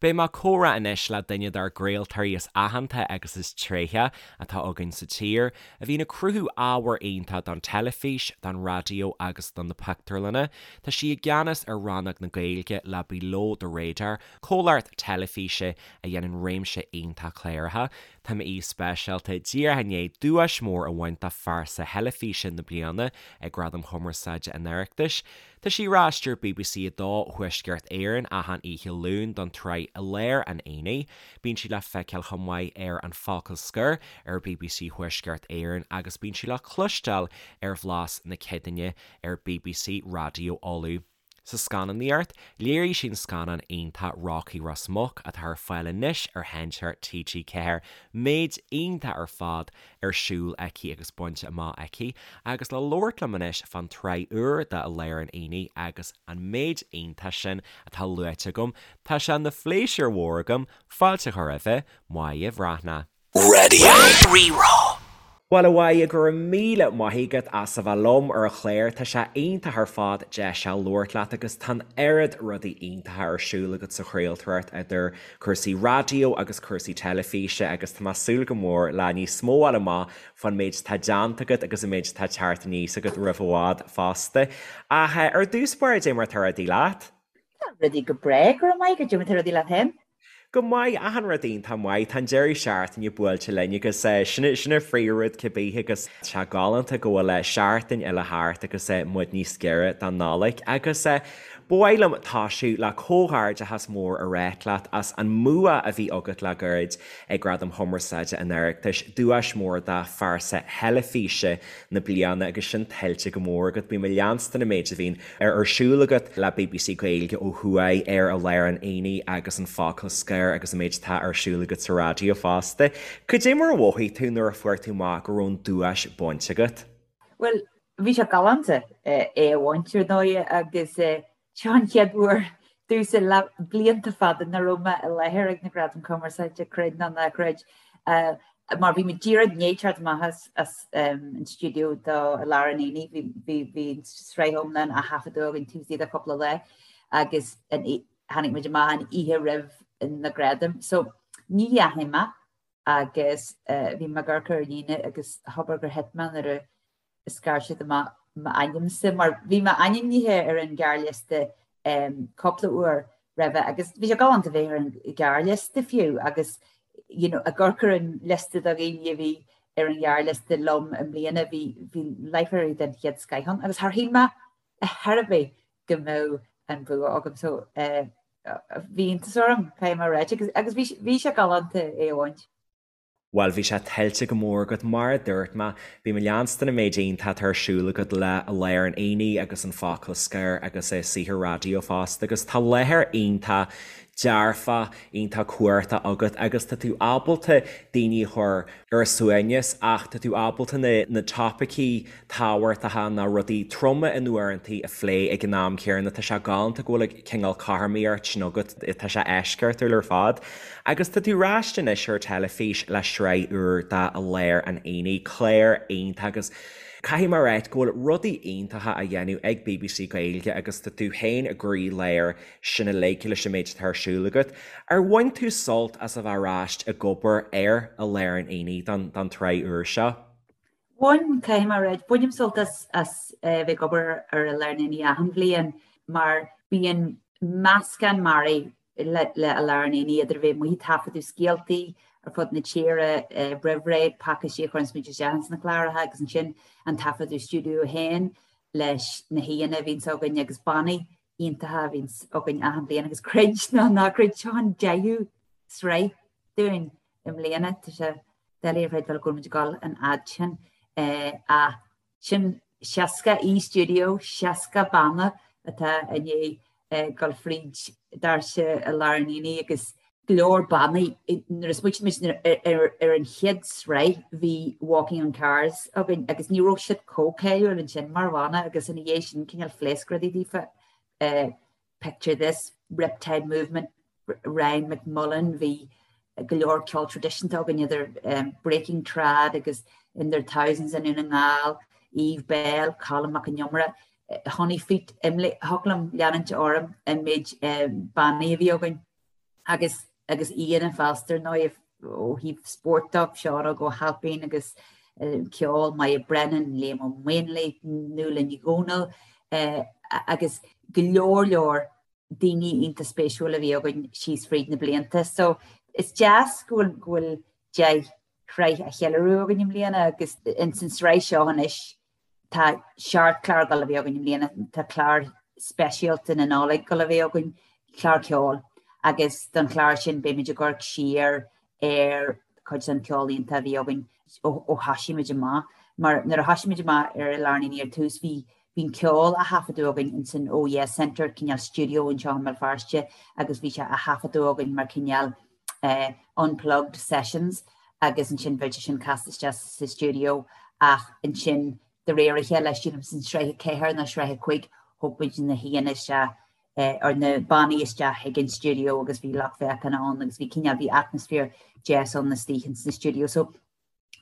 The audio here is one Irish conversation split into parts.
Beidh mé ag comhrá anois le duine dár gcraoltóirí is aitheanta agus is tréithe atá againn sa tír, a bhíonn ag cruthú ábhar iontach don teilifís, don raidió agus do na pictiúrlanna. Tá sí i gceannas ar rannóg na Gaeilge le Below the Radar, comhlacht teilifíse a dhéanann réimse iontach cláracha. Tá m'aoi speisialta díreach i ndiaidh duais mhór a bhaint do Phearsa Theilifíse na Bliana ag Gradaim Chumarsáide an Oireachtais. Tá sí ar ais ar BBC 2 Thuaisceart Éireann achan oíche Luain don tsraith I Lár an Aonaigh. Bíonn sí le feiceáil chomh maith ar An Focal Scoir ar BBC Thuaisceart Éireann agus bíonn sí le cloisteáil ar Bhlas na Céadaoine ar BBC Raidió Uladh. Sa scannánaíocht, léirigh sí an scannán iontach Rocky Ros Muc atá ar fáil anois ar Sheinnteoir TG4. Méid iontach ar fad ar siúl aici agus bainte amach aici, agus le labhairt liom anois fán tsraith úr de I Lár an Aonaigh agus an méid iontach sin atá luaite agam, tá sé ina phléisiúr mhór agam fáilte a chur roimhe, Máire Bhreathnach. Raidió Rí-Rá. Bhuel, a Mháire, go raibh míle maith agat as a bheith liom ar an chlár. Tá sé iontach ar fad deis a labhairt leat agus tá an oiread rudaí iontacha ar siúl agat sa chraoltóireacht idir cúrsaí raidió agus cúrsaí teilifíse agus tá mé ag súil go mór le níos mó a fháil amach fán méid atá déanta agat agus an méid atá ag teacht aníos agat roimh i bhfad fosta. Ach ar dtús báire, dé mar atá rudaí leat? Tá rudaí go breá, go raibh maith agat, dé mar atá rudaí leat féin? Go maith, achan rud iontach maith. Tá an deireadh seachtaine buailte linn agus sin sin an phríomhrud cibé agus tá sé galánta go bhfuil seachtain eile thart agus muid níos giorra don Nollaig agus ba mhaith liom tosú le comhghairdeachas mór a ráit leat as an mbua a bhí agat le gairid ag Gradaim Chumarsáide an Oireachtais, duais mhór do Phearsa Theilifíse na Bliana agus sin tuillte go mór agat. Bím ag leanstan an méid a bhíonn ar siúl agat le bbc Gaeilge ó thuaidh ar I Lár an Aonaigh agus An Focal Scoir agus an méid atá ar siúl agat sa raidió fosta. Cad é mar a mhothaigh tú nuair a fuair tú amach go raibh an duais bainte agat? Bhuel, bhí sé galánta é a bhaint, ar ndóigh, agus seo an chéad uair domhsa le blianta fada nach raibh mé i láthair ag na Gradaim Cumarsáide, creid nó ná creid. Mar bhí muid díreach i ndiaidh teacht amach as an stiúideo do I Lár an Aonaigh, bhí bhí bhí an tsraith iomlán á thaifeadadh againn taobh istigh de chúpla lá agus tháinig muid amach an oíche roimh na gradaim. So ní dheachaigh mé agus bhí mé ag amharc ar líne agus abair gur thit mé nuair a scair siad amach m'ainmse mar bhí mé ainmnithe ar an ghearrliosta cúpla uair roimhe agus bhí sé galánta bheith ar an ghearrliosta fiú agus you know, ag amharc ar an liosta de dhaoine a bhí ar an ghearrliosta liom i mbliana bhí bhí láithreoirí den chéad scoith ann agus char shíl mé ar chor ar bith go mbeadh an bua agam so uh, bhí iontas orm caithfidh mé a ráit agus, agus bhí, bhí sé galánta é a bhaint. Bhuel, bhí sé tuillte go mór agat, mar a dúirt mé. Bím ag leanstan an méid iontach atá ar siúl agat le I Lár an Aonaigh agus An Focal Scoir agus saothar raidió fosta agus tá láthair iontach dearfach, iontach cumhachtach agat agus tá tú ábalta daoine a chur ar a suaimhneas ach tá tú ábalta na topaicí tábhachtacha nó rudaí troma in uaireantaí a phlé ag an am céanna. Tá sé galánta go bhfuil cineál cothromaíocht sin agat, tá sé eisceachtúil ar fad. Agus tá tú ar ais anois ar teilifís le sraith úr de I Lár an Aonaigh, clár iontach agus caithfidh mé a ráit go bhfuil rudaí iontacha á dhéanamh ag bbc Gaeilge agus tá tú féin i gcroí-lár sin uilig leis an méid atá ar siúl agat. Ar bhain tú sult as a bheith ar ais ag obair ar I Lár an Aonaigh don tsraith úr seo? Bhain, caithfidh mé a ráit. Bainim sult as as bheith ag obair ar I Lár an Aonaigh achan bhliain mar bíonn meascán mearaí le le I Lár an Aonaigh idir a bheith amuigh ag taifeadadh scéaltaí ar fud na tíre roimh ré, pacáistí a chuireanns muid isteach ins na cláracha agus ansin an taifeadadh stiúideo féin leis na haíonna a bhíonns againn agus bannaí iontacha a bhíonns againn achan bhliain agus creid nó ná creid seo an deichiú sraith dúinn i mbliana. Tá sé doiligh a chreidbheáil go bhfuil muid ag dul an fhad sin ach sin 60 aoi stiúideo, 60 banna atá i ndiaidh dul fríd doirse I Lár an Aonaigh agus go leor bannaí. Nuair a smaoitigh muid ar an chéad sraith bhí Walking on Cars againn agus ní raibh siad chomh cáiliúil ansin mar bhanna agus ina dhiaidh sin cineál phléasc rudaí daofa. Picture This, Riptide Movement, Ryan McMullan, bhí go leor ceol traidisiúnta againn idir Breaking Trad agus In Their Thousands i nDún na nGall, Eve Belle, Colm Mac Con Iomaire, Honey Feet, Imlé, thiocfadh liom leanúint orm an méid bannaí a bhí againn. Agus agus aíonna fosta ar ndóigh ó thaobh spóirt de, Seán Óg Ó hAilpín agus ceol, Moya Brennan, Liam Ó Maonlaí, Nuala Ní Dhomhnaill agus go leor leor daoine iontach spéisiúil a bhí againn síos fríd na blianta. So is deas go bhfuil go bhfuil 10 shraith á cheiliúradh againn i mbliana agus ins an sraith seo anois Tá seacht clár ag dul a bheith againn i mbliana, tá clár speisialta na Nollag ag dul a bheith againn, clár ceoil, agus don chlár sin beimid ag amharc siar ar chuid den cheol iontach a bhí againn ó thoisigh muid amach. Mar nuair a thoisigh muid amach ar I Lár an Aonaigh ar tús bhí bhí an ceol á thaifeadadh againn ins an Oh Yeah Centre, cineál stiúideo anseo i mBéal Feirste agus bhí sé á thaifeadadh againn mar cineál unplugged sessions agus ansin bheadh sé sin casta isteach sa stiúideo ach ansin de réir a chéile, sílim san sraith 4 nó sraith 5, thóg muid na haíonna isteach or na bannaí isteach chuig an stiúideo agus bhí lucht féachana ann agus bhí cineál, bhí atmaisféar deas ann istigh ins na stiúideo. So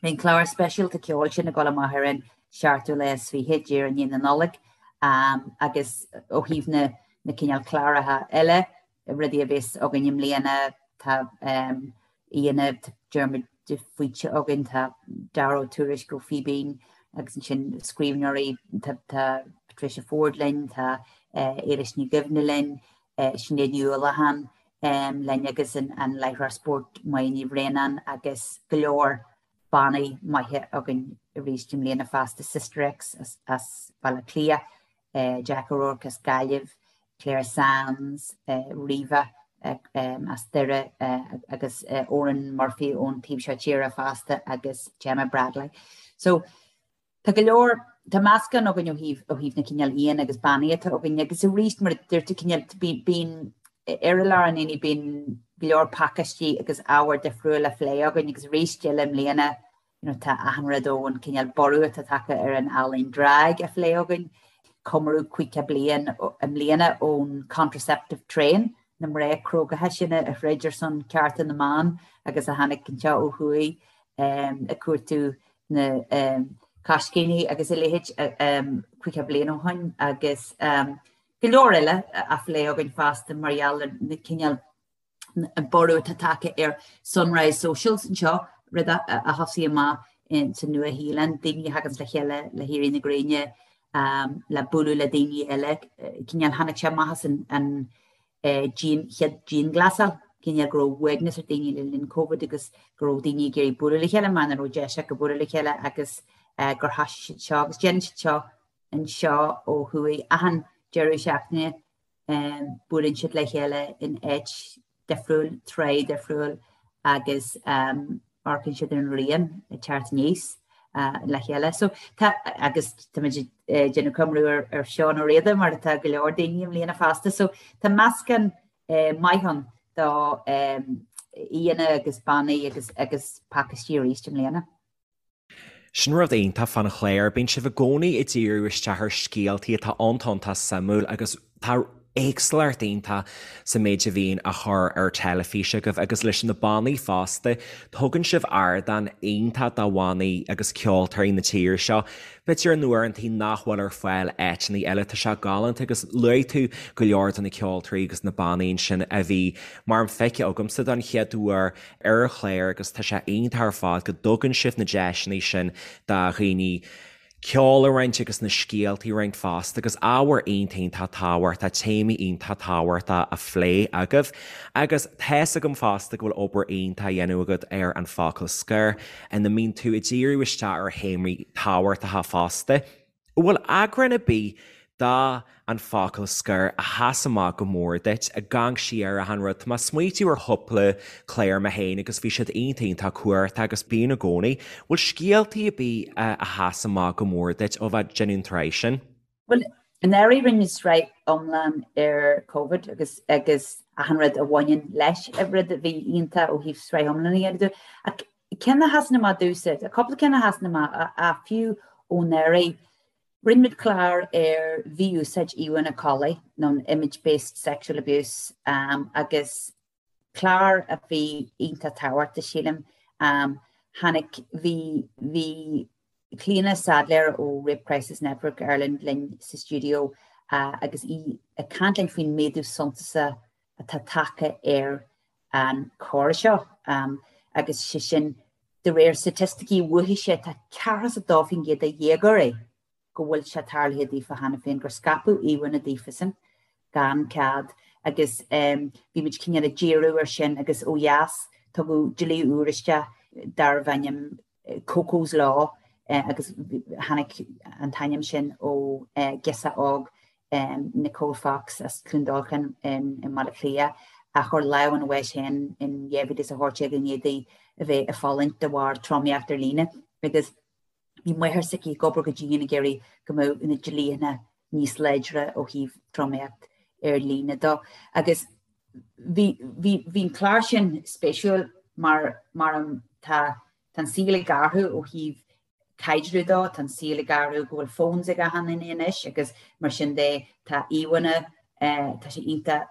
Beidh an clár speisialta ceoil sin ag dul amach ar an seachtú lá is fiche, díreach i ndiaidh na Nollag, agus ó thaobh na na cineál cláracha eile, rudaí a bheas againn i mbliana, tá aíonna, tá Diarmuid de Faoite againn, tá Dara Ó Tuairisg ó Fíbín agus ansin scríbhneoirí, tá tá Patricia Forde linn, tá Éilis Ní Dhuibhne linn, Sinéad Ní Uallacháin linn agus an láithreoir spóirt Máire Ní Bhraonáin agus go leor bannaí maithe againn arís i mbliana fosta, Sister X as Baile Átha Cliath, Jack O'Rourke as Gaillimh, Clare Sands, Riva as Doire agus Oran Murphy ón taobh seo tíre fosta agus Gemma Bradley. So Tá go leor, tá meascán againn ó thaobh, ó thaobh na cineál aíonna agus bannaí atá againn agus arís mar a dúirt tú cineál bíonn ar I Lár an Aonaigh bíonn go leor pacáistí agus ábhar difriúil á phlé againn agus arís eile i mbliana you know tá achan rud ón cineál borradh atá tagtha ar an ealaín drag á phlé againn, comóradh 50 bliain i mbliana ón contraceptive train, na mná crógacha sin a throid ar son cearta na mban agus a tháinig anseo ó thuaidh ag cuartú na coiscíní agus a leithéid 50 bliain ó shoin agus go leor eile á phlé againn fosta mar gheall ar na cineál an borradh atá tagtha ar Sunrise Socials anseo, rud a thosaigh amach sa Nua-Shéalainn, daoine a thaganns le chéile le héirí na gréine le bualadh le daoine eile, cineál tháinig sé amach as an chéad dianghlasáil, cineál go raibh uaigneas ar daoine le linn Covid agus go raibh daoine ag iarraidh bualadh le chéile mar nach raibh deis acu bualadh le chéile agus gur thoisigh siad seo agus déanann siad seo anseo ó thuaidh achan deireadh seachtaine buaileann siad le chéile in áit difriúil, tráth difriúil agus amharcann siad ar an ghrian ag teacht aníos le chéile. So tá, agus táimid ag déanamh comóradh ar Seán Ó Riada mar atá go leor daoine i mbliana fosta. So tá meascán maith ann do aíonna agus bannaí agus agus pacáistí arís i mbliana. Sin rud iontach fán chlár, bíonn sibh i gcónaí ag díriú isteach ar scéaltaí atá iontach iontach suimiúil agus tá éagsúlacht iontach sa méid a bhíonn á chur ar teilifís agaibh agus leis na bannaí fosta, tugann sibh ardán iontach do bhannaí agus ceoltóirí na tíre seo, b'fhéidir in uaireantaí nach bhfuil ar fáil áiteanna eile. Tá sé galánta agus luaigh tú go leor de na ceoltóirí agus na bannaí ansin a bhí mar feicthe agamsa don chéad uair ar an chlár agus tá sé iontach ar fad go dtugann sibh na deiseanna sin do dhaoine ceol a roinnt agus na scéaltaí a roinnt fosta agus ábhar iontach iontach tábhachtach, téamaí iontach tábhachtach á phlé agaibh. Agus tá's agam fosta go bhfuil obair iontach á dhéanamh agat ar An Focal Scoir ina mbíonn tú ag díriú isteach ar théamaí tábhachtacha fosta. An bhfuil eagrán ar bith de An Focal Scoir a sheas amach go mór duit, ag amharc siar ar achan rud? Tá mé ag smaoitiú ar chúpla clár mé féin agus bhí siad iontach iontach cumhachtach agus bíonn i gcónaí. Bhfuil scéaltaí ar bith a sheas amach go mór duit ó bheith ag déanamh an tsraith sin? Bhuel, anuraidh rinne muid sraith iomlán ar Covid agus agus achan rud a bhaineann leis, rud a bhí iontach ó thaobh sraith iomlán a dhéanamh. Ach Ceann a sheasann amach domhsa, tá cúpla ceann a sheasann amach, ach fiú ó anuraidh, rinne muid clár ar mhí-úsáid íomhánna collaí, nó an image-based sexual abuse, agus clár a bhí iontach tábhachtach, sílim. Tháinig, bhí, bhí Clíona Saidléar ó Rape Crisis Network Ireland linn sa stiúideo agus í ag caint linn faoin méadú suntasach atá tagtha ar. an choir seo agus sé sin de réir staitisticí uathise tá 42% de dhéagóirí go bhfuil sé tarlaithe daofa cheana féin gur scaipeadh íomhánna daofasan gan cead agus bhí muid cineál ag díriú ar sin agus ó dheas tugadh dlí úr isteach darbh ainm Coco's Law agus tháinig an t-ainm sin ó ghirseach óg Nicole Fox as Cluain Dolcáin i mBaile Átha Cliath a chuir lámh ina bhás féin in 2018 i ndiaidh di a bheith ag fulaingt de bharr tromaíocht ar líne agus Bhí máthair s'aici ag obair go dian ag iarraidh go mbeadh na dlíthe níos láidre ó thaobh tromaíocht ar líne dó. Agus bhí, bhí, bhí an clár sin spéisiúil mar, mar tá, tá an saol ag athrú ó thaobh caidreamh dó, tá an saol ag athrú go bhfuil phones ag achan duine anois agus mar sin de tá íomhánna, tá sé iontach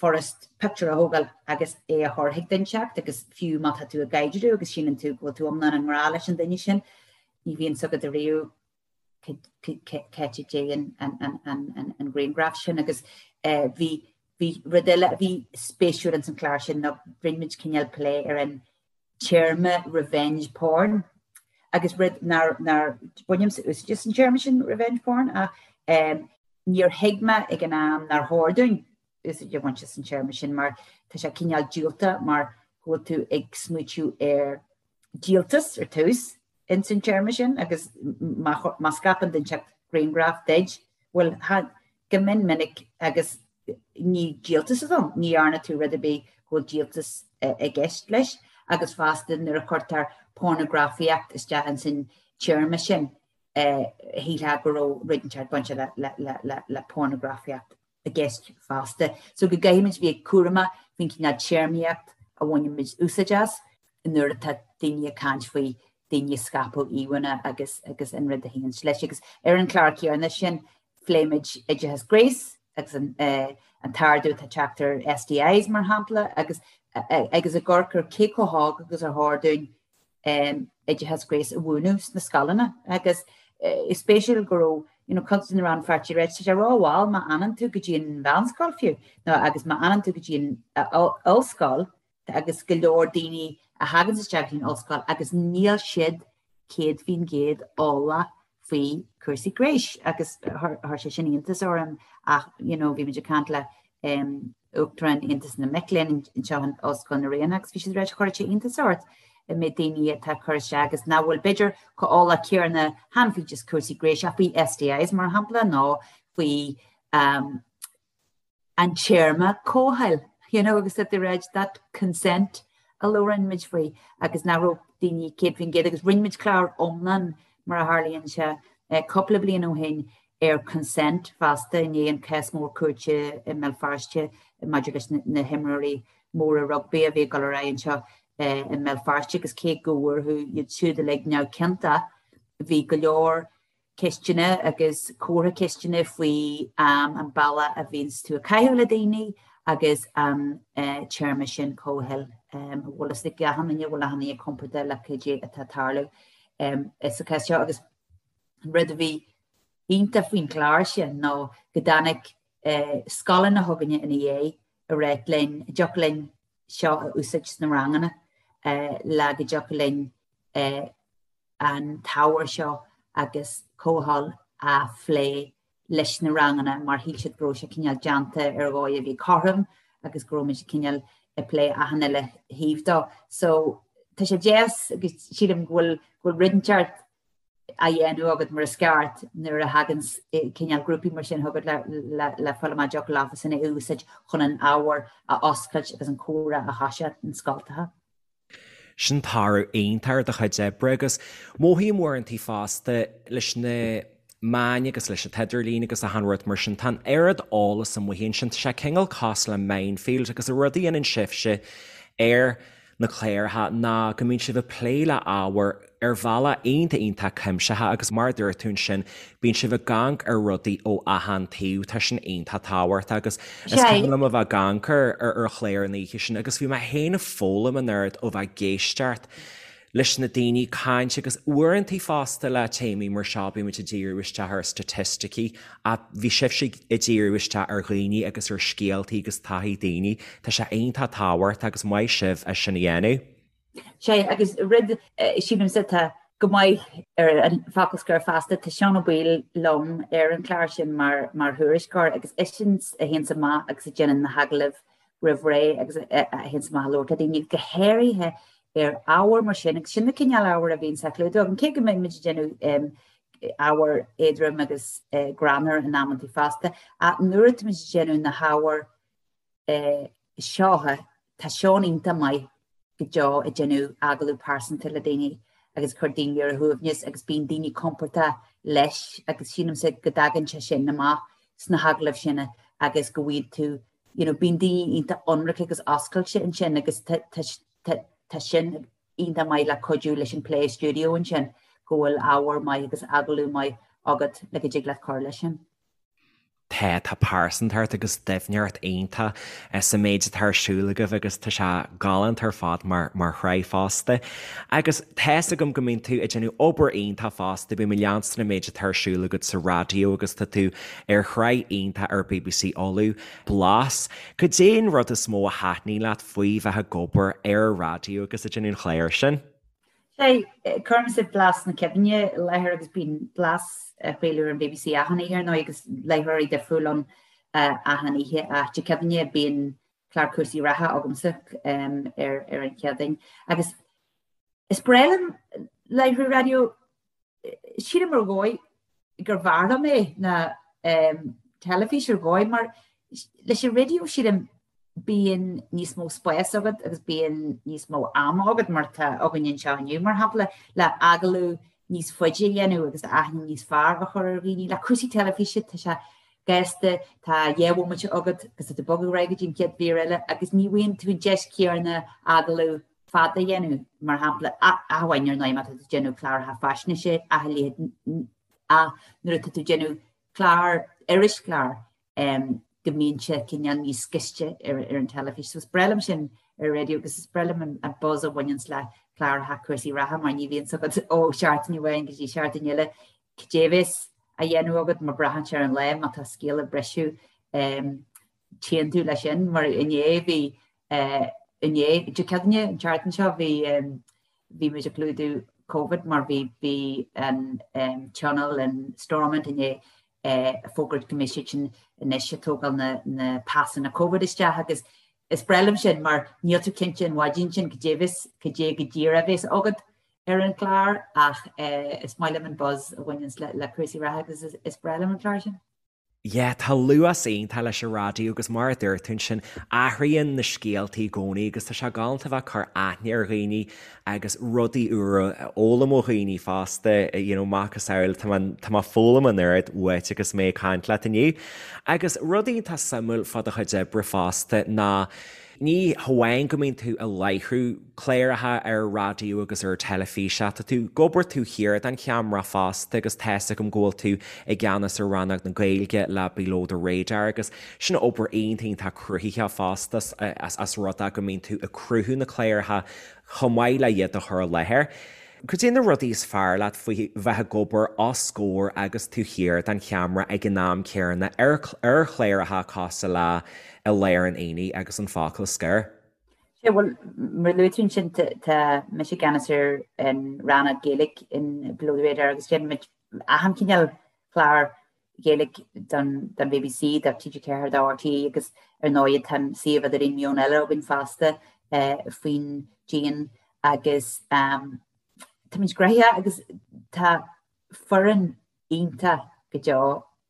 furast pictiúr a thógáil agus é a chur chuig duine inteacht agus fiú má tá tú i gcaidreamh agus síleann tú go bhfuil tú iomlán i ngrá leis an duine sin, ní bhíonn 's agat ariamh c'áit a dtéann an grianghraf sin agus bhí bhí rud eile a bhí spéisiúil ins an chlár sin ná rinne muid cineál plé ar an téarma revenge porn agus rud nár nár bainimse úsáid as an téarma sin revenge porn ach níor thuig mé ag an am nár chóir dúinn úsáid a bhaint as an téarma sin mar tá sé cineál diúltach mar go bhfuil tú ag smaoitiú ar díoltas ar tús ins an téarma sin agus má scaipeann duine inteacht grianghraf duit, bhuel, go mion minic agus ní díoltas atá ann, ní dhearna tú rud ar bith go bhfuil díoltas i gceist leis agus fosta nuair a chuirtear pornagrafaíocht isteach ins an téarma sin, shílfeá go raibh rud inteacht bainte le pornagrafaíocht i gceist fosta. So go gcaithfimid bheith cúramach faoin cineál téarmaíocht a bhainimid úsáid as nuair atá daoine ag caint faoi daoine ag scaipeadh íomhánna agus agus an rud a théann leis. Agus ar an chlár céanna sin phléimid oideachas gnéis agus an an t-ardú atá ag teacht ar STIs mar shampla agus agus ag amharc ar cé chomh hóg agus ar chóir dúinn oideachas gnéis a mhúineadh sna scoileanna agus is spéisiúil go raibh you know, cuid de na rannpháirtithe ag ráit tá sé rómhall má fhanann tú go dtí an mheánscoil fiú nó agus má fhanann tú go dtí an ollscoil agus go leor daoine a thagann isteach go dtí an ollscoil agus níl siad 100% eolach faoi chúrsaí gnéis agus chuir sé sin iontas orm ach you know, bhí muid ag caint le um, Uachtarán Aontas na Mic Léinn anseo in Ollscoil na Ríona agus bhí siad ag ráit chuirfeadh sé iontas ort an méid daoine atá ag cur isteach agus nach bhfuil b'fhéidir chomh eolach céanna chan faoi just cúrsaí gnéis ach faoi STIs mar shampla nó faoi um, an téarma comhthoil, you know, agus that they read that consent a labhrann muid faoi agus nach raibh daoine 100% agus rinne muid clár iomlán mar a tharlaíonn sé cúpla bliain ó shin ar consent fosta i ndiaidh an cás mór cúirte i mBéal Feirste maidir leis na himreoirí móra rugbaí a bhí ag dul ar aghaidh anseo i mBéal Feirste agus cé go bhfuarthas iad siúd uilig neamhchiontach bhí go leor ceisteanna agus comhartha ceisteanna faoi an bealach a bhíonns tú ag caitheamh le daoine agus an téarma sin comhthoil. An bhfuil fhios ag achan duine, bhfuil achan duine compordach le cad é atá ag tarlú sa chás seo agus an rud a bhí iontach faoin chlár sin ná go dtáinig scoileanna chugainne ina dhiaidh ag ráit linn, an dtiocfadh linn seo a úsáid sna ranganna le go dtiocfadh linn an t-ábhar seo agus comhthoil a phlé leis na ranganna mar shíl siad go raibh sé cineál déanta ar dhóigh a bhí cothrom agus go raibh muid cineál ag plé achan uile thaobh dó. So tá sé deas agus sílim go bhfuil go bhfuil rud inteacht á dhéanamh agat mar is ceart nuair a thagann cineál grúpaí mar sin chugat le le le fáil amach an dtiocfadh leofasan é a úsáid chun an ábhar a oscailt agus an comhrá a thoiseacht in scoltacha. Sin toradh iontach ar do chuid oibre agus mothaím uaireantaí fosta leis na meáin agus leis an t-idirlíon agus achan rud mar sin, tá an oiread eolas amuigh ansin, tá sé cineál cosúil le minefield agus an rud a dhéanann sibhse ar na cláracha ná go mbíonn sibh ag plé le ábhar ar bhealach iontach iontach cuimsitheach agus mar a dúirt tú ansin, bíonn sibh ag amharc ar rudaí ó achan taobh, tá sin iontach tábhachtach agus is cuimhin liom a bheith ag amharc ar ar chlár an oíche sin agus bhí mé féin ag foghlaim an oiread ó bheith ag éisteacht. leis na daoine caint agus uaireantaí fosta le téamaí mar seo bíonn muid ag díriú isteach ar staitisticí ach bhí sibhse ag díriú isteach ar dhaoine agus ar scéaltaí agus taithí daoine. Tá sé iontach tábhachtach agus maith sibh as sin a dhéanamh. Sea, agus rud, sílimse, atá go maith ar an bhfocal scoir feasta, tá Seán Ó Baoill liom ar an chlár sin mar mar thuairisceoir agus eisean a théanns amach agus a déanann na hagallaimh roimh ré agus a théanns amach a labhairt le daoine, go háirithe ar ábhar mar sin, agus sin na cineál ábhair a bhíonns á chlúdú agam, cé go mbeidh muid ag déanamh ábhar éadrom agus greannmhar in amantaí fosta, ach nuair atá muid ag déanamh na hábhair seo, tá Seán iontach maith go deo ag déanamh agallamh pearsanta le daoine agus cur daoine ar a shuaimhneas agus bíonn daoine compordach leis agus sílimse go dtagann sé sin amach sna hagallaimh sin agus go bhfaighidh tú you know, bíonn daoine iontach ionraic agus oscailte ansin agus tá sin iontach maith le cuidiú leis an plé stiúideo ansin go bhfuil ábhar maith agus agallamh maith agat le go dtig leat cur leis sin. Tá, tá pearsantacht agus doimhneacht iontach sa méid atá ar siúl agaibh agus tá sé galánta ar fad mar mar shraith fosta. Agus tá's agam go mbíonn tú ag déanamh obair iontach fosta, bím ag leanstan an méid atá ar siúl agat sa raidió agus tá tú ar shraith iontach ar bbc Uladh, Blas. Cad é an rud is mó a thaitníonn leat faoi bheith ag obair ar an raidió agus ag déanamh an chláir sin? Sea, cuirimse Blas na Cuimhne i láthair agus bíonn Blas á chraoladh ar an bbc achan oíche ar ndóigh agus láithreoirí difriúil ann achan oíche ach Dé Cuimhne bíonn clár cúrsaí reatha agamsa ar ar an Chéadaoin agus is breá liom láithriú raidió Sílim ar dhóigh gur bhfearr liom é ná teilifís ar dhóigh mar leis an raidió sílim bíonn níos mó spáis agat agus bíonn níos mó ama agat mar atá againn anseo inniu mar shampla le agallamh níos faide a dhéanamh agus aithne níos fearr a chur ar dhaoine. Le cúrsaí teilifíse tá sé gasta, tá 2 bhomaite agat agus tá tú ag bogadh ar aghaidh go dtí an chéad mhír eile agus ní bhfaigheann tú an deis chéanna agallamh fada a dhéanamh, mar shampla, ach amháin ar ndóigh má tá tú ag déanamh cláracha faisnéise ach a leithéid ach nuair atá tú ag déanamh clár, irischlár, go mbíonn sé cineál níos gaiste ar an teilifís. So is breá liom sin ar an raidió agus is breá liom an buzz a bhaineanns le cláracha cúrsaí reatha mar ní bhíonns agat ó sheachtain amháin go dtí seachtain eile cad é a bheas á dhéanamh agat mar braitheann sé ar an lá má tá scéal ag briseadh. Téann tú leis sin mar inné bhí inné, Dé Céadaoine, an tseachtain seo, bhí bhí muid ag clúdú Covid mar bhí bhí an tionól in Stormont inné ag fógairt go mbeidh siad sin anois ag tógáil na na pasanna Covid isteach agus is breá liom sin mar níl tú cinnte an mhaidin sin cad é bheas cad é go díreach a bheas agat ar an chlár ach is maith liom an buzz a bhaineanns le le cúrsaí reatha agus is breá liom an clár sin. Yeah, tá luas iontach leis an raidió agus mar a dúirt tú ansin, athraíonn na scéaltaí i gcónaí agus tá sé galánta bheith ag cur aithne ar dhaoine agus rudaí úra a fhoghlaim ó dhaoine fosta, you know, macasamhail, tá mé, tá mé ag foghlaim an oiread uait agus mé ag caint leat inniu. Agus rud iontach suimiúil fá do chuid oibre fosta ná ní hamháin go mbíonn tú ag láithriú cláracha ar raidió agus ar teilifís ach tá tú ag obair taobh thiar den cheamara fosta agus tá's agam go bhfuil tú i gceannas ar rannóg na Gaeilge le Below the Radar agus sin obair iontach iontach cruthaitheach fosta as rud é go mbíonn tú ag cruthú na cláracha chomh maith le iad a chur i láthair. Cad é na rudaí is fearr leat faoi bheith ag obair os comhair agus taobh thiar den cheamara ag an am céanna ar chláracha cosúil le I Lár an Aonaigh agus An Focal Scoir? Sea, bhuel, mar a luaigh tú ansin, tá mise i gceannas ar an rannóg Gaeilge in Below the Radar agus déanann muid achan chineál clár Gaeilge don bbc, do TG4, do RTÉ agus ar ndóigh tá an suíomh idirlín Meon Eile againn fosta faoin díon agus táimid gnoitheach agus tá foireann iontach go deo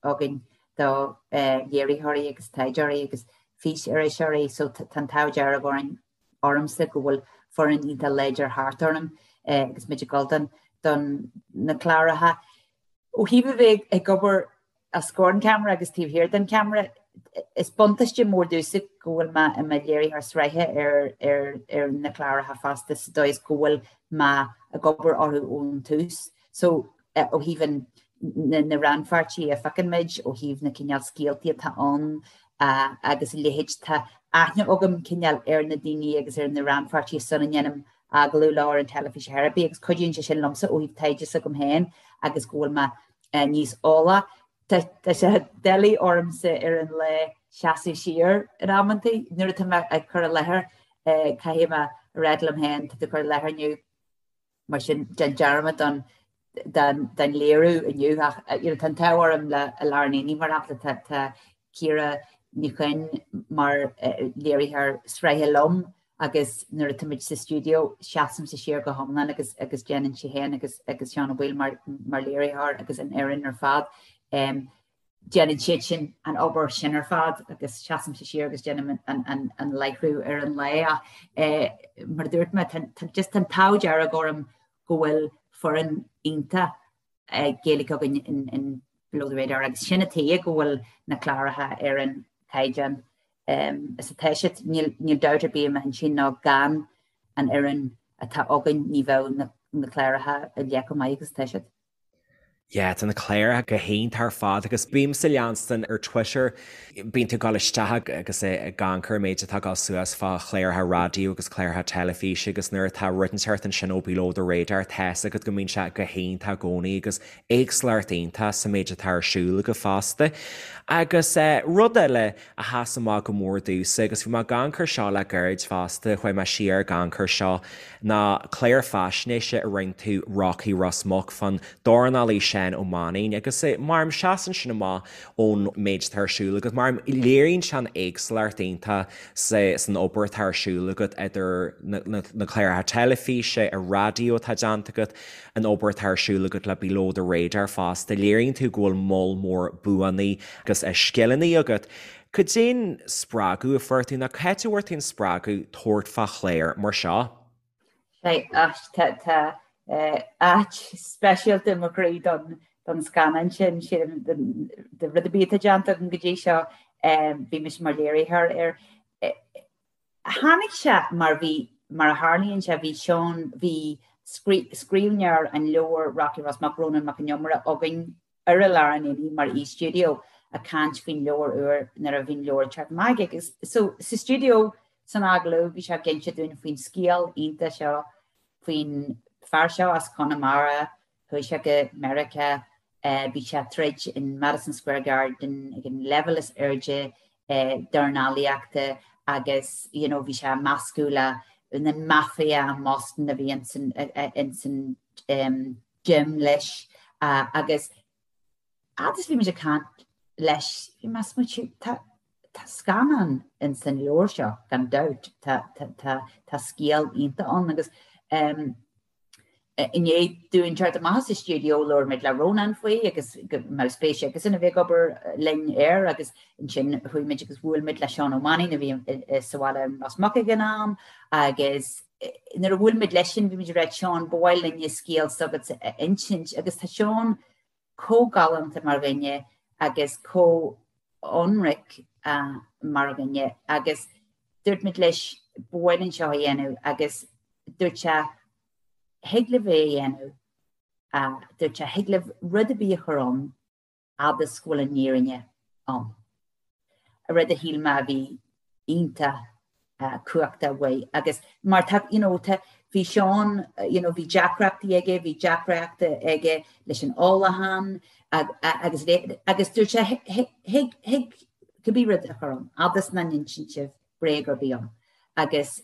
againn do léiritheoirí agus taighdeoirí agus fís-iriseoirí so tá an t-ádh dearg orainn, ormsa go bhfuil foireann iontach láidir thart orm agus muid ag dul don don na cláracha. Ó thaobh a bheith ag obair os comhair an cheamara agus taobh thiar den cheamara, is buntáiste mór domhsa go bhfuil mé i mo léiritheoir sraithe ar ar ar na cláracha fosta sa dóigh is go bhfuil mé ag obair orthu ón tús. So ó thaobh an, na rannpháirtithe a phiocann muid, ó thaobh na cineál scéaltaí atá ann agus a leithéid, tá aithne agam cineál ar na daoine agus ar na rannpháirtithe sula ndéanaim agallamh leo ar an teilifís ar chor ar bith agus cuidíonn sé sin liomsa ó thaobh taighde s'agam féin agus go bhfuil mé níos eolaí. Tá sé doiligh ormsa ar an lá seasamh siar in amantaí nuair atá mé ag cur i láthair caithfidh mé a rá liom féin tá tú ag cur i láthair inniu mar sin déan dearmad don don léiriú inniu ach you know tá an t-ádh orm le I Lár an Aonaigh mar shampla tá tá Ciara Ní Chuinn mar léiritheoir sraithe liom agus nuair atá muid sa stiúideo seasaimse siar go hiomlán agus agus déanann sí féin agus agus Seán Ó Baoill mar mar léiritheoir agus an fhoireann ar fad. Um, déanann siad sin an obair sin ar fad agus seasaimse siar agus déanaim an, an, an láithriú ar an lá ach eh, mar a dúirt mé tá, tá, just an t-ádh dearg orm go bhfuil foireann iontach Gaeilge againn in, in Below the Radar agus sin an tuige go bhfuil na cláracha ar an caighdeán um, is atá siad. Níl, níl dabht ar bith i m'intinn ná gan an fhoireann atá againn ní bheadh na, na cláracha a leithéid chomh maith agus atá siad. Yeah, tá na cláracha go hiontach ar fad agus bímse ag leanstan ar Twitter, bíonn tú ag dul isteach agus ag amharc ar an méid atá ag dul suas fá chláracha raidió agus cláracha teilifíse agus nuair atá rud inteacht ansin ó Below the Radar tá's agat go mbíonn sé go hiontach i gcónaí agus éagsúlacht iontach sa méid atá ar siúl agat fosta. Agus rud eile a sheas amach go mór domhsa agus bhí mé ag amharc air seo le gairid fosta, chuaigh mé siar ag amharc air seo, ná clár faisnéise a rinne tú Rocky Ros Muc fán dornálaí Seán Ó Mainnín agus mar seasann sin amach ón méid atá ar siúl agat, mar léiríonn sé an éagsúlacht iontach san obair atá ar siúl agat idir na cláracha teilifíse, an raidió atá déanta agat, an obair atá ar siúl agat le Below the Radar fosta, léiríonn tú go bhfuil moll mór buanna agus scileanna agat. Cad é an spreagadh a fuair tú, nó cá háit a bhfuair tú an spreagadh tabhairt fá chlár mar seo? Tá áit speisialta i mo chroí don scannán sin, sílim, de rud ar bith atá déanta agam go dtí seo, bhí mise mar léiritheoir air. Tháinig sé mar bhí, mar a tharlaíonn sé, bhí Seán, bhí scríbhneoir an leabhair Rocky Ros Muc, Rónán Mac Con Iomaire, againn ar I Lár an Aonaigh mar aoi stiúideo ag caint faoin leabhar úr nuair a bhí an leabhar ag teacht amach agus so sa stiúideo san agallamh bhí sé ag inse dúinn faoin scéal iontach seo faoin fear seo as Conamara chuaigh sé go Meiriceá bhí sé ag troid in Madison Square Garden ag an leibhéal is airde dornálaíochta agus you know bhí sé ag meascadh le na mafia i mBoston a bhí ins an gym leis agus fhad is bhí muid ag caint leis bhí mé ag smaoitiú tá tá scannán ins an leabhar seo gan dabht tá tá tá tá scéal iontach ann agus um, i ndiaidh dúinn teacht amach as an stiúideo labhair muid le Rónán faoi agus go mbeadh spéis aigesan a bheith ag obair linn air agus ansin chuaigh muid agus bhuail muid le Seán Ó Mainnín a bhí sa bhaile in Ros Muc ag an am agus nuair a bhuail muid leisean bhí muid ag rá Seán ba mhaith linne scéal s'agatsa a insint agus tá Seán chomh galánta mar dhuine agus chomh ionraic mar dhuine agus dúirt muid leis ba mhaith linn seo a dhéanamh agus dúirt sé thig libh é a dhéanamh, dúirt sé thig libh rud ar bith a chur ann fhad is go bhfuil an fhírinne ann. Rud a shíl mé a bhí iontach cumhachtach uaidh agus mar tá you know tá bhí Seán you know bhí deacrachtaí aige, bhí deacrachtaí aige leis an ólachán agus agus dúirt sé thig thig cibé rud a chur ann fhad is nach n-insíonn sibh bréag ar bith ann. Agus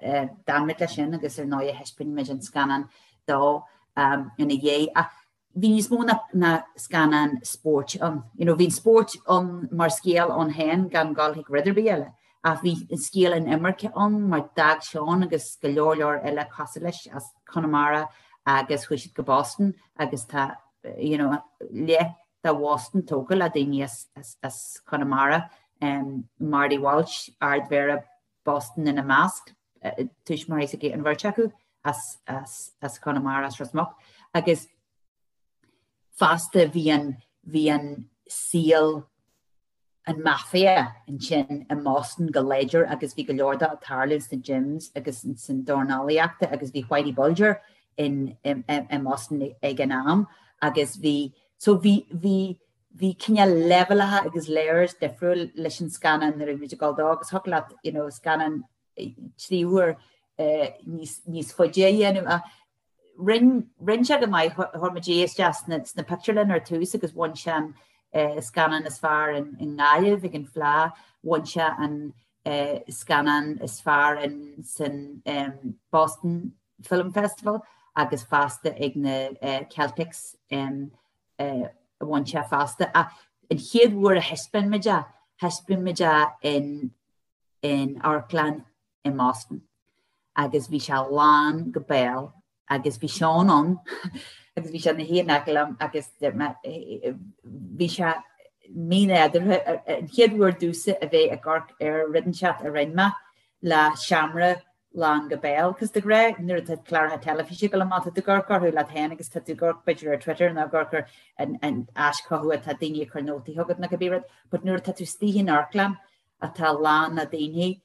d'fhan muid leis sin agus ar ndóigh thaispeáin muid an scannán dó ina dhiaidh. Ach bhí níos mó ná scannán spóirt ann. You know, bhí an spórt ann mar scéal ann féin gan dul chuig rud ar bith eile, ach bhí an scéal an imirce ann mar d'fhág Seán agus go leor leor eile cosúil leis as Conamara agus chuaigh siad go Boston agus tá you know, leath de Bhoston tógtha le daoine as, as, as Conamara, um, Marty Walsh, Ardmhéara Boston ina measc, tuismitheoirí s'aige an bheirt acu as, as, as Conamara, as Ros Muc. Agus fosta bhí an, bhí an saol an mafia ansin i mBoston go láidir agus bhí go leor de ag tarlú sna gyms agus san dornálaíochta agus bhí Whitey Bulger in, i, i mBoston ag an am agus bhí, so bhí, bhí, bhí cineál leibhéalacha agus layers difriúil leis an scannán nuair a bhí muid ag dul dó agus thiocfadh leat you know scannán 3 uair. níos faide a dhéanamh ach rinn rinn sé go maith chuir muid é isteach sna sna pictiúrlanna ar tús agus bhain sé an scannán is fearr in i nGaillimh ag an Fleadh, bhain sé an scannán is fearr in san Boston Film Festival agus fosta ag na Celtics bhain sé fosta. Ach an chéad uair a thaispeáin muid é, thaispeáin muid é in in amharclann i mBoston agus bhí sé lán go béal agus bhí Seán ann agus bhí sé ina shuí in aice liom agus bhí sé mínádúrtha an chéad uair domhsa a bheith ag amharc ar rud inteacht a rinne mé le seomra lán go béal. Cos de ghnáth nuair atá cláracha teilifíse ag dul amach tá tú ag amharc orthu leat féin agus tá tú ag amharc b'fhéidir ar Twitter nó ag amharc ar an áis chucu atá daoine ag cur nótaí chugat nó cibé rud, but nuair atá tú istigh in amharclann atá lán le daoine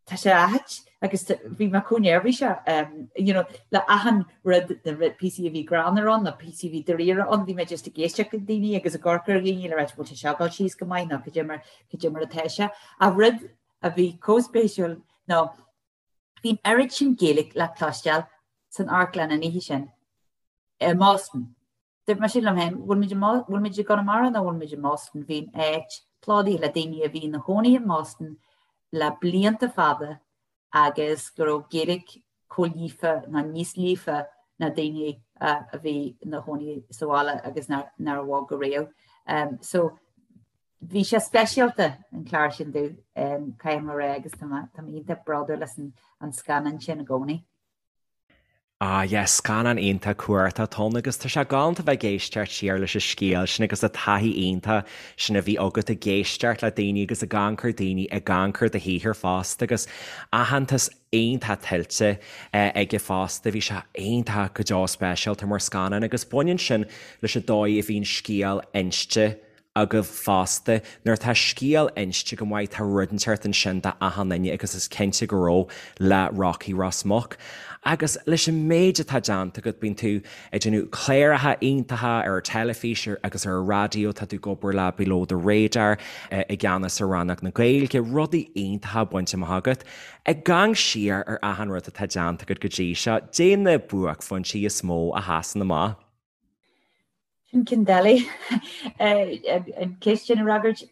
tá sé ait agus bhí mé chomh neirbhíseach you know le achan rud na píosaí a bhí greannmhar ann na píosaí a bhí dáiríre ann bhí mé just ag éisteacht le daoine agus ag amharc ar dhaoine le rá bhfuil sé seo ag dul síos go maith nó cad é mar cad é mar atá sé. Ach rud a bhí chomh spéisiúil ná bhí an oiread sin Gaeilge le cloisteáil san amharclann an oíche sin i mBoston. Dúirt mise liom féin, bhfuil muid i bhfuil muid i gConamara nó bhfuil muid i mBoston? Bhí an áit plódaithe le daoine a bhí ina chónaí i mBoston le blianta fada agus go raibh Gaeilge chomh líofa nó níos líofa ná daoine a bhí ina chónaí sa bhaile agus nár bhog ariamh. So bhí sé speisialta an clár sin domh, caithfidh mé a rá agus tá mé iontach bródúil as an scannán sin i gcónaí. Ah yes, scannán iontach cumhachtach atá ann agus tá sé galánta bheith ag éisteacht siar leis an scéal sin agus an taithí iontach sin a bhí agat ag éisteacht le daoine agus ag amharc ar daoine ag amharc ar do shaothar fosta agus aitheantas iontach tuillte aige fosta. Bhí sé iontach go deo speisialta mar scannán agus baineann sin leis an dóigh a bhíonn scéal inste agaibh fosta. Nuair atá scéal inste go maith tá rud inteacht ansin do achan duine agus is cinnte go raibh le Rocky Ros Muc. Agus leis an méid atá déanta agat, bíonn tú ag déanamh cláracha iontacha ar an teilifís agus ar an raidió, tá tú ag obair le Below the Radar, i gceannas ar rannóg na Gaeilge, rudaí iontacha bainte amach agat. Ag amharc siar ar achan rud atá déanta agat go dtí seo, caidé na buaicphointí is mó a sheasann amach. Sin ceann doiligh an cheist sin a fhreagairt.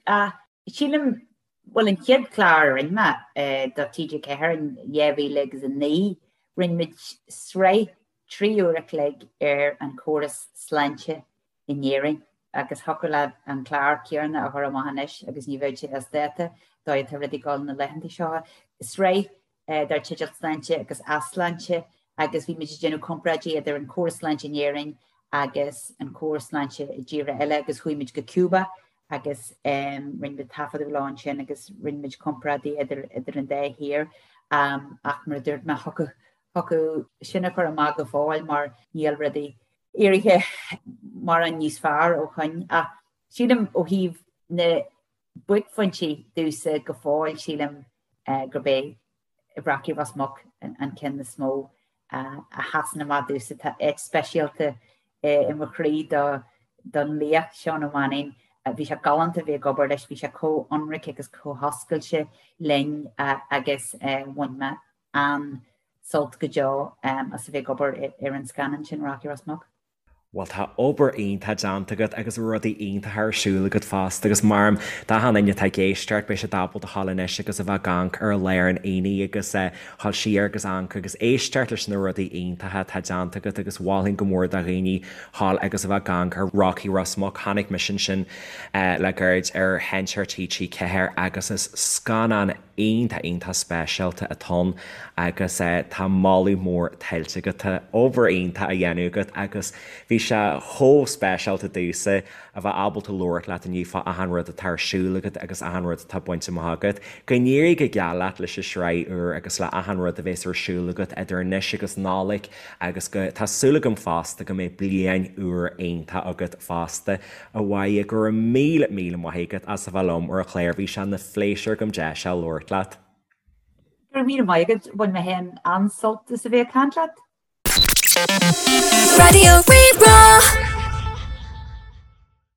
Sílim, bhuel an chéad chlár a rinne mé do TG4 in 2009, rinne muid sraith 3 uair a chloig ar an chóras sláinte in Éirinn agus thiocfadh leat an clár céanna a chur amach anois agus ní bheadh sé as dáta, dóigh atá rudaí ag dul na laethanta seo. Sraith dar teideal Sláinte agus Easláinte agus bhí muid ag déanamh comparáidí idir an córas sláinte in Éirinn agus an córas sláinte i dtíortha eile agus chuaigh muid go Cuba agus rinne muid taifeadadh leo ansin agus rinne muid comparáidí idir idir an dá thír ach mar a dúirt mé thiocfadh thiocfadh sin a chur amach go fóill mar níl rudaí éirithe mórán níos fearr ó shoin ach sílim ó thaobh na buaicphointí domhsa go fóill sílim gurb é Rocky Ros Muc an ceann is mó a sheasann amach domhsa. Tá áit speisialta i mo chroí don laoch, Seán Ó Mainnín. Bhí sé galánta a bheith ag obair leis, bhí sé chomh ionraic agus chomh hoscailte linn agus bhain mé an-sult go deo as a bheith ag obair ar an scannán sin, Rocky Ros Muc. Bhuel tá obair iontach déanta agat agus rudaí iontacha ar siúl agat fosta agus mar d'achan duine atá ag éisteacht beidh siad ábalta a ghabháil anois agus a bheith ag amharc ar Lár an Aonaigh agus a ghabháil siar agus amharc agus éisteacht leis na rudaí iontacha atá déanta agat agus mholfainn go mór do dhaoine ghabháil agus a bheith ag amharc ar Rocky Ros Muc. Chonaic mise ansin le gairid ar Sheinnteoir TG4 agus is scannán iontach iontach speisialta atá ann agus tá moladh mór tuillte agat. Tá obair iontach á dhéanamh agat agus bhí sé chomh speisialta domhsa a bheith ábalta labhairt leat inniu fá achan rud atá ar siúl agat agus achan rud atá bainte amach agat. Go n-éirí go geal leat leis an sraith úr agus le achan rud a bheas ar siúl agat idir anois agus Nollaig agus go, tá súil agam fosta go mbeidh bliain úr iontach agat fosta. A Mháire, go raibh míle, míle maith agat as a bheith liom ar an chlár. Bhí sé ina phléisiúr agam deis a labhairt leat. Go raibh míle maith agat, bhain mé féin an-sult as a bheith ag caint leat. Raidió Rí-Rá.